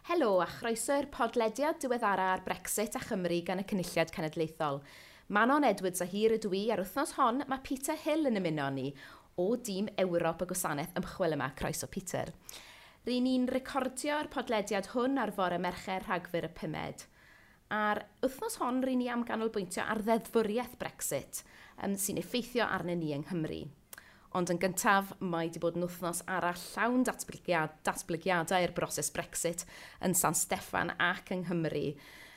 Helo a chroeso i'r podlediad diweddara ar Brexit a Chymru gan y Cynulliad Cenedlaethol. Manon Edwards a hir ydw i a'r wythnos hon mae Peter Hill yn ymuno ni o dîm Ewrop y gwasanaeth ymchwil yma. Croeso, Peter. Ry'n ni'n recordio'r podlediad hwn ar fore Mercher, Rhagfyr y 5. A'r wythnos hon ry'n ni am ganolbwyntio ar ddeddfwriaeth Brexit sy'n effeithio arnyn ni yng Nghymru. Ond yn gyntaf, mae wedi bod yn wythnos arall llawn datblygiadau i'r broses Brexit yn San Steffan ac yng Nghymru.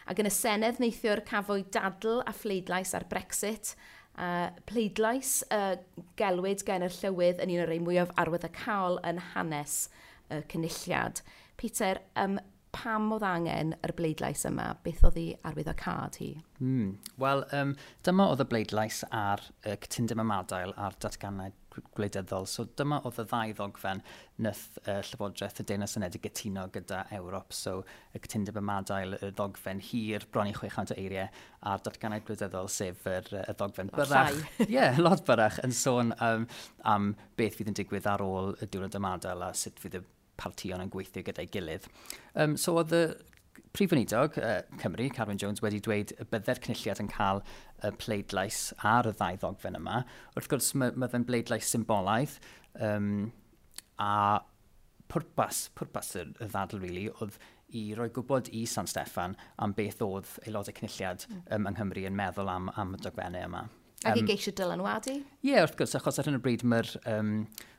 Ac yn y Senedd neithiwr cafwyd dadl a phleidlais ar Brexit. Pleidlais gelwyd gen yr llywydd yn un o'r rhai mwyaf arwyddocaol yn hanes y Cynulliad. Peter, pam oedd angen yr bleidlais yma? Beth oedd ei arwyddocâd hi? Wel, dyma oedd y bleidlais ar y cytundeb ymadael a'r datganau gwleidyddol. So dyma oedd y ddau ddogfen nath Llywodraeth y Deyrnas Unedig gytuno gyda Ewrop. So y cytundeb ymadael, y ddogfen hir, bron i 600 o eiriau, a'r datganau gwleidyddol, sef y ddogfen byrrach. Ie, yeah, lot byrrach, yn sôn am beth fydd yn digwydd ar ôl y diwrnod ymadael a sut fydd y partïon yn gweithio gyda'i gilydd. So oedd y Prif Weinidog Cymru, Carwyn Jones, wedi dweud y bydde'r Cynulliad yn cael y pleidlais ar y ddau ddogfen yma. Wrth gwrs, mae fe'n bleidlais symbolaidd, a pwrpas y ddadl, really, oedd i roi gwybod i San Steffan am beth oedd aelodau Cynulliad yng Nghymru yn meddwl am y dogfennau yma. Ac i geisio dylanwadu? Ie, yeah, wrth gwrs, achos ar hyn o bryd mae'r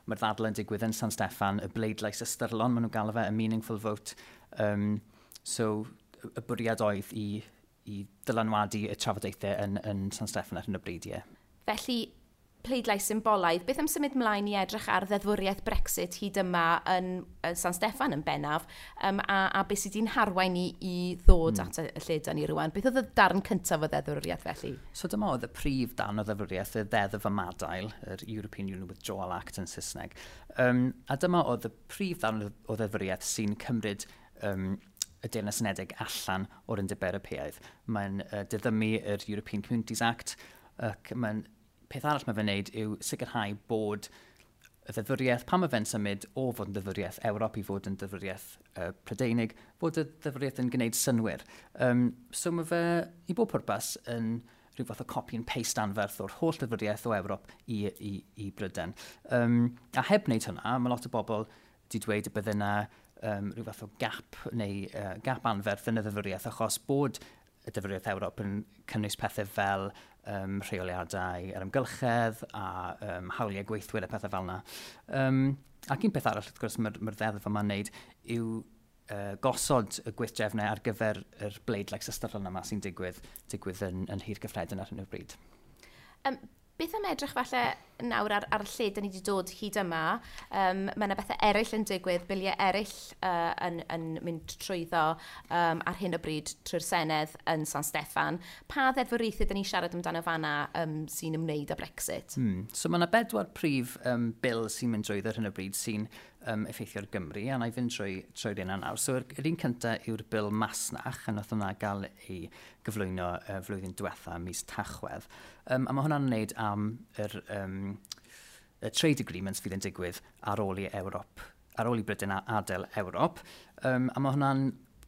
mae ddadl yn digwydd yn San Steffan, y bleidlais ystyrlon, maen nhw'n galw fe, y meaningful vote. So, y bwriad oedd i dylanwadu y trafodaethau yn San Steffan ar hyn o bryd, ie. Felly, pleidlais symbolaidd. Beth am symud mlaen i edrych ar ddeddfwriaeth Brexit hyd yma yn San Steffan yn bennaf, a beth sydd wedi'n harwain ni i ddod at y lle da ni rwan? Beth oedd y darn cyntaf o ddeddfwriaeth felly? So dyma oedd y prif darn o ddeddfwriaeth, y Ddeddf Ymadael, yr European Union Withdrawal Act yn Saesneg. A dyma oedd y prif darn o ddeddfwriaeth sy'n cymryd y Deyrnas Unedig allan o'r Undeb Ewropeaidd. Mae'n diddymu yr European Communities Act, ac mae'n peth arall mae fe'n neud yw sicrhau bod y ddeddfwriaeth, pan mae fe'n symud o fod yn ddeddfwriaeth Ewrop i fod yn ddeddfwriaeth Prydeinig, fod y ddeddfwriaeth yn gwneud synnwyr. So mae fe, i bob pwrpas, yn rhyw fath o copy and paste anferth o'r holl ddeddfwriaeth o Ewrop i Bryden. A heb wneud hwnna, mae lot o bobl wedi dweud y bydde yna rhyw fath o gap neu gap anferth yn y ddeddfwriaeth, achos bod y ddeddfwriaeth Ewrop yn cynnwys pethau fel rheoliadau ar amgylchedd a hawliau gweithwyr a pethau fel yna. Ac un peth arall, wrth gwrs, mae'r ddeddf yma'n wneud yw gosod y gweithdrefnau ar gyfer yr bleidlais ystyrlon yma sy'n digwydd yn Nhŷ'r Cyffredin ar hyn o bryd. Beth am edrych falle nawr ar lle da ni wedi dod hyd yma? Mae yna bethau eraill yn digwydd, biliau eraill yn mynd trwyddo ar hyn o bryd trwy'r Senedd yn San Steffan. Pa ddeddfwriaethau da ni'n siarad amdano fanna sy'n ymwneud â Brexit? So mae yna bedwar prif bil sy'n mynd drwyddo ar hyn o bryd sy'n effeithio ar Gymru, a na i fynd trwy'r un nawr. So yr un cyntaf yw'r bil masnach, a nath hwnna gael ei gyflwyno flwyddyn diwetha, mis Tachwedd. A mae hwnna'n wneud am y trade agreements fydd yn digwydd ar ôl i Ewrop, ar ôl i Brydain adael Ewrop. A mae hwnna'n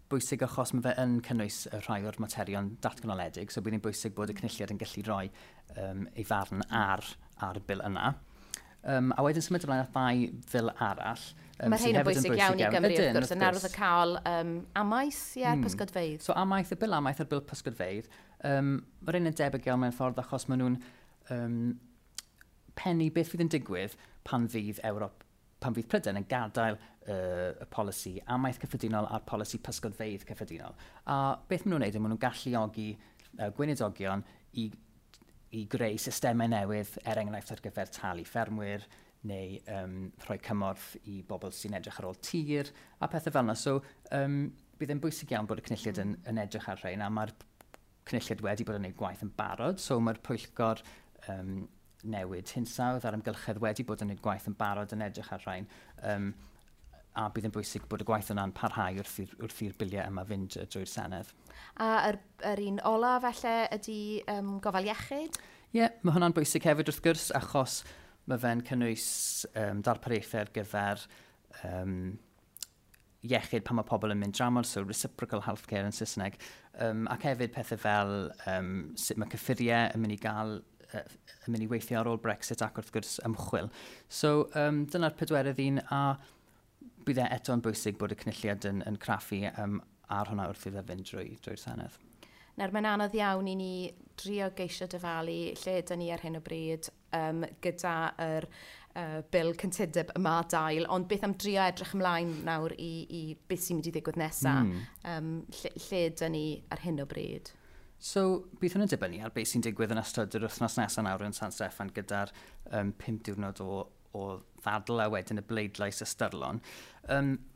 bwysig achos mae fe yn cynnwys y rhai o'r materion datganoledig, so bydd hi'n bwysig bod y Cynulliad yn gallu rhoi ei farn ar y bil yna. A wedyn symud ymlaen at ddau fil arall. Mae rhain yn bwysig iawn i Gymru, wrth gwrs, yn arwyddocaol amaeth, ie, pysgodfeydd. So amaeth, y bil amaeth a'r bil pysgodfeydd, mae'r un yn debyg iawn mewn ffordd achos maen nhw'n pennu beth fydd yn digwydd pan fydd Ewrop, pan fydd Prydain yn gadael y polisi amaeth cyffredinol a'r polisi pysgodfeydd cyffredinol. A beth maen nhw'n neud yw maen nhw'n galluogi gweinidogion i greu systemau newydd, er enghraifft ar gyfer talu ffermwyr neu rhoi cymorth i bobl sy'n edrych ar ôl tir a pethau fel yna. So bydd e'n bwysig iawn bod y Cynulliad yn edrych ar rhain, a mae'r Cynulliad wedi bod yn gwneud gwaith yn barod, so mae'r pwyllgor newid hinsawdd a'r amgylchedd wedi bod yn gwneud gwaith yn barod yn edrych ar rhain, a bydd yn bwysig bod y gwaith yna'n parhau wrth i'r biliau yma fynd drwy'r Senedd. A yr un ola falle ydy gofal iechyd? Ie, yeah, mae hwnna'n bwysig hefyd wrth gwrs, achos mae fe'n cynnwys darpariaethau ar gyfer iechyd pan mae pobl yn mynd dramor, so reciprocal healthcare yn Saesneg, ac hefyd pethau fel sut mae cyffuriau yn mynd i gael yn mynd i weithio ar ôl Brexit ac wrth gwrs ymchwil. So dyna'r pedwerydd un, a bydd e eto'n bwysig bod y Cynulliad yn craffu ar hwnna wrth iddo fynd drwy'r Senedd. Nawr, mae'n anodd iawn i ni drio geisio dyfalu lle ydyn ni ar hyn o bryd gyda yr bil cytundeb ymadael, ond beth am drio edrych ymlaen nawr i beth sy'n mynd i ddigwydd nesaf? Lle ydyn ni ar hyn o bryd? So, bydd hwn yn dibynnu ar beth sy'n digwydd yn ystod yr wythnos nesaf nawr yn San Steffan gyda'r 5 diwrnod o ddadl a wedyn y bleidlais ystyrlon.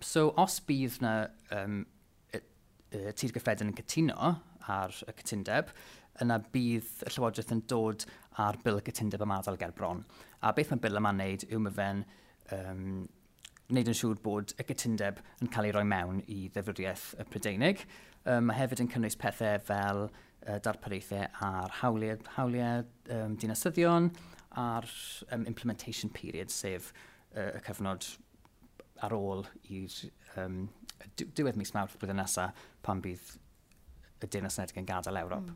So, os bydd na Tŷ'r Gyffredin yn cytuno ar y cytundeb, yna bydd y Llywodraeth yn dod ar bil y cytundeb ymadael ger bron. A beth mae bil yma'n neud yw mae fe'n wneud yn siŵr bod y cytundeb yn cael ei roi mewn i ddeddfwriaeth y Prydeinig. Mae hefyd yn cynnwys pethau fel darpariaethau ar hawliau dinasyddion, a'r implementation period, sef y cyfnod ar ôl i'r diwedd mis Mawrth blwyddyn nesaf pan bydd y Deyrnas Unedig yn gadael Ewrop.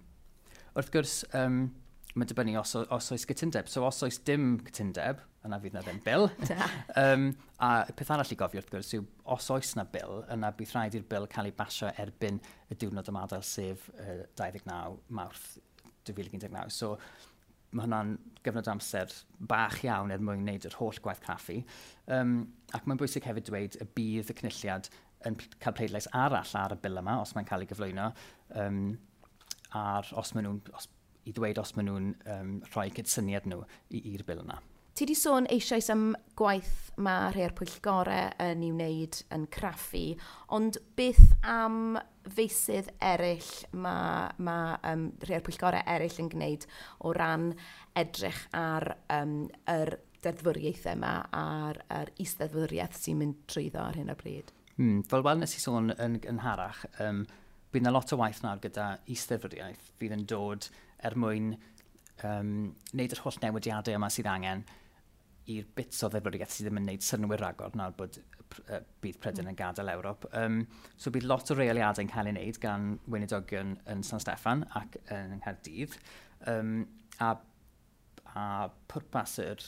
Wrth gwrs, mae'n dibynnu os oes cytundeb. So os oes dim cytundeb, yna fydd na ddim bil. A peth arall i gofio wrth gwrs yw, os oes na bil, yna bydd rhaid i'r bil cael ei basio erbyn y diwrnod ymadael, sef 29 Mawrth 2019. So mae hwnna'n gyfnod amser bach iawn er mwyn wneud yr holl gwaith craffu. Ac mae'n bwysig hefyd dweud y bydd y Cynulliad yn cael pleidlais arall ar y bil yma, os mae'n cael ei gyflwyno, ar os maen nhw'n, os, i ddweud os maen nhw'n rhoi cydsyniad nhw i'r bil yna. Ti di sôn eisoes am gwaith mae rhai o'r pwyllgorau yn ei wneud yn craffu, ond beth am feysydd eraill mae rhai o'r pwyllgorau eraill yn gwneud o ran edrych ar yr deddfwriaethau yma a'r is-ddeddfwriaeth sy'n mynd trwyddo ar hyn o bryd? Fel wel nes i sôn yn gynharach, bydd yna lot o waith nawr gyda is-ddeddfwriaeth fydd yn dod er mwyn wneud yr holl newidiadau yma sydd angen i'r bits o ddeddfwriaeth sydd ddim yn wneud synnwyr ragor nawr bod bydd Prydain yn gadael Ewrop. So bydd lot o reoliadau'n cael ei wneud gan weinidogion yn San Steffan ac yn Nghaerdydd. A pwrpas yr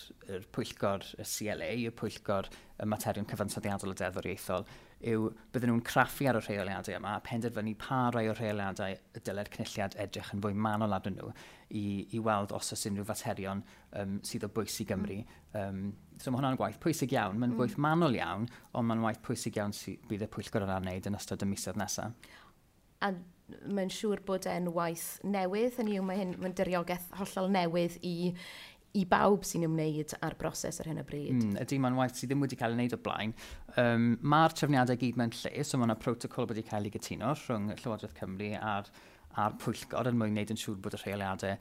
pwyllgor y CLA, y pwyllgor y materion cyfansoddiadol a deddfwriaethol, yw bydden nhw'n craffu ar y rheoliadau yma a penderfynu pa rai o'r rheoliadau y dylai'r Cynulliad edrych yn fwy manwl arnyn nhw i weld os oes unrhyw faterion sydd o bwys i Gymru. So mae hwnna'n gwaith pwysig iawn, mae'n gwaith manwl iawn, ond mae'n waith pwysig iawn sydd bydd y pwyllgor yna'n wneud yn ystod y misoedd nesaf. A mae'n siŵr bod e'n waith newydd, hynny yw mae'n diriogaeth hollol newydd i bawb sy'n ymwneud â'r broses ar hyn o bryd. Ydy, mae'n waith sydd ddim wedi cael ei wneud o blaen. Mae'r trefniadau gyd mewn lle, so mae yna protocol wedi cael ei gytuno rhwng Llywodraeth Cymru a'r pwyllgor yn mwyn wneud yn siŵr bod y rheoliadau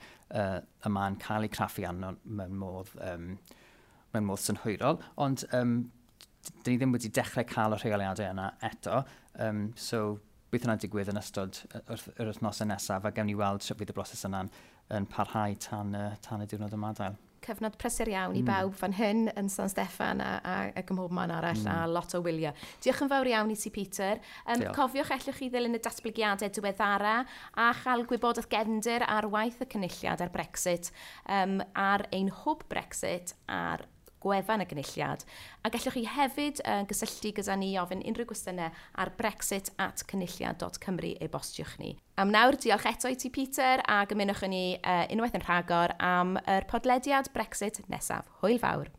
yma'n cael eu craffu arno mewn modd synhwyrol. Ond dyn ni ddim wedi dechrau cael y rheoliadau yna eto, so bydd hwnna'n digwydd yn ystod yr wythnosau nesaf, a gewn ni weld sut fydd y broses yna'n yn parhau tan y diwrnod ymadael. Cyfnod prysur iawn i bawb fan hyn yn San Steffan ac ym mhob man arall a lot o wyliau. Diolch yn fawr iawn i ti, Peter. Diolch. Cofiwch allwch chi ddilyn y datblygiadau diweddara a chael gwybodaeth gefndir ar waith y Cynulliad ar Brexit ar ein hwb Brexit ar gwefan y Gynulliad. A gallwch chi hefyd gysylltu gyda ni i ofyn unrhyw gwestiynau ar brexit@cynulliad.cymru e-bostiwch ni. Am nawr, diolch eto i ti, Peter, ac ymunwch â ni unwaith yn rhagor am yr podlediad Brexit nesaf. Hwyl fawr.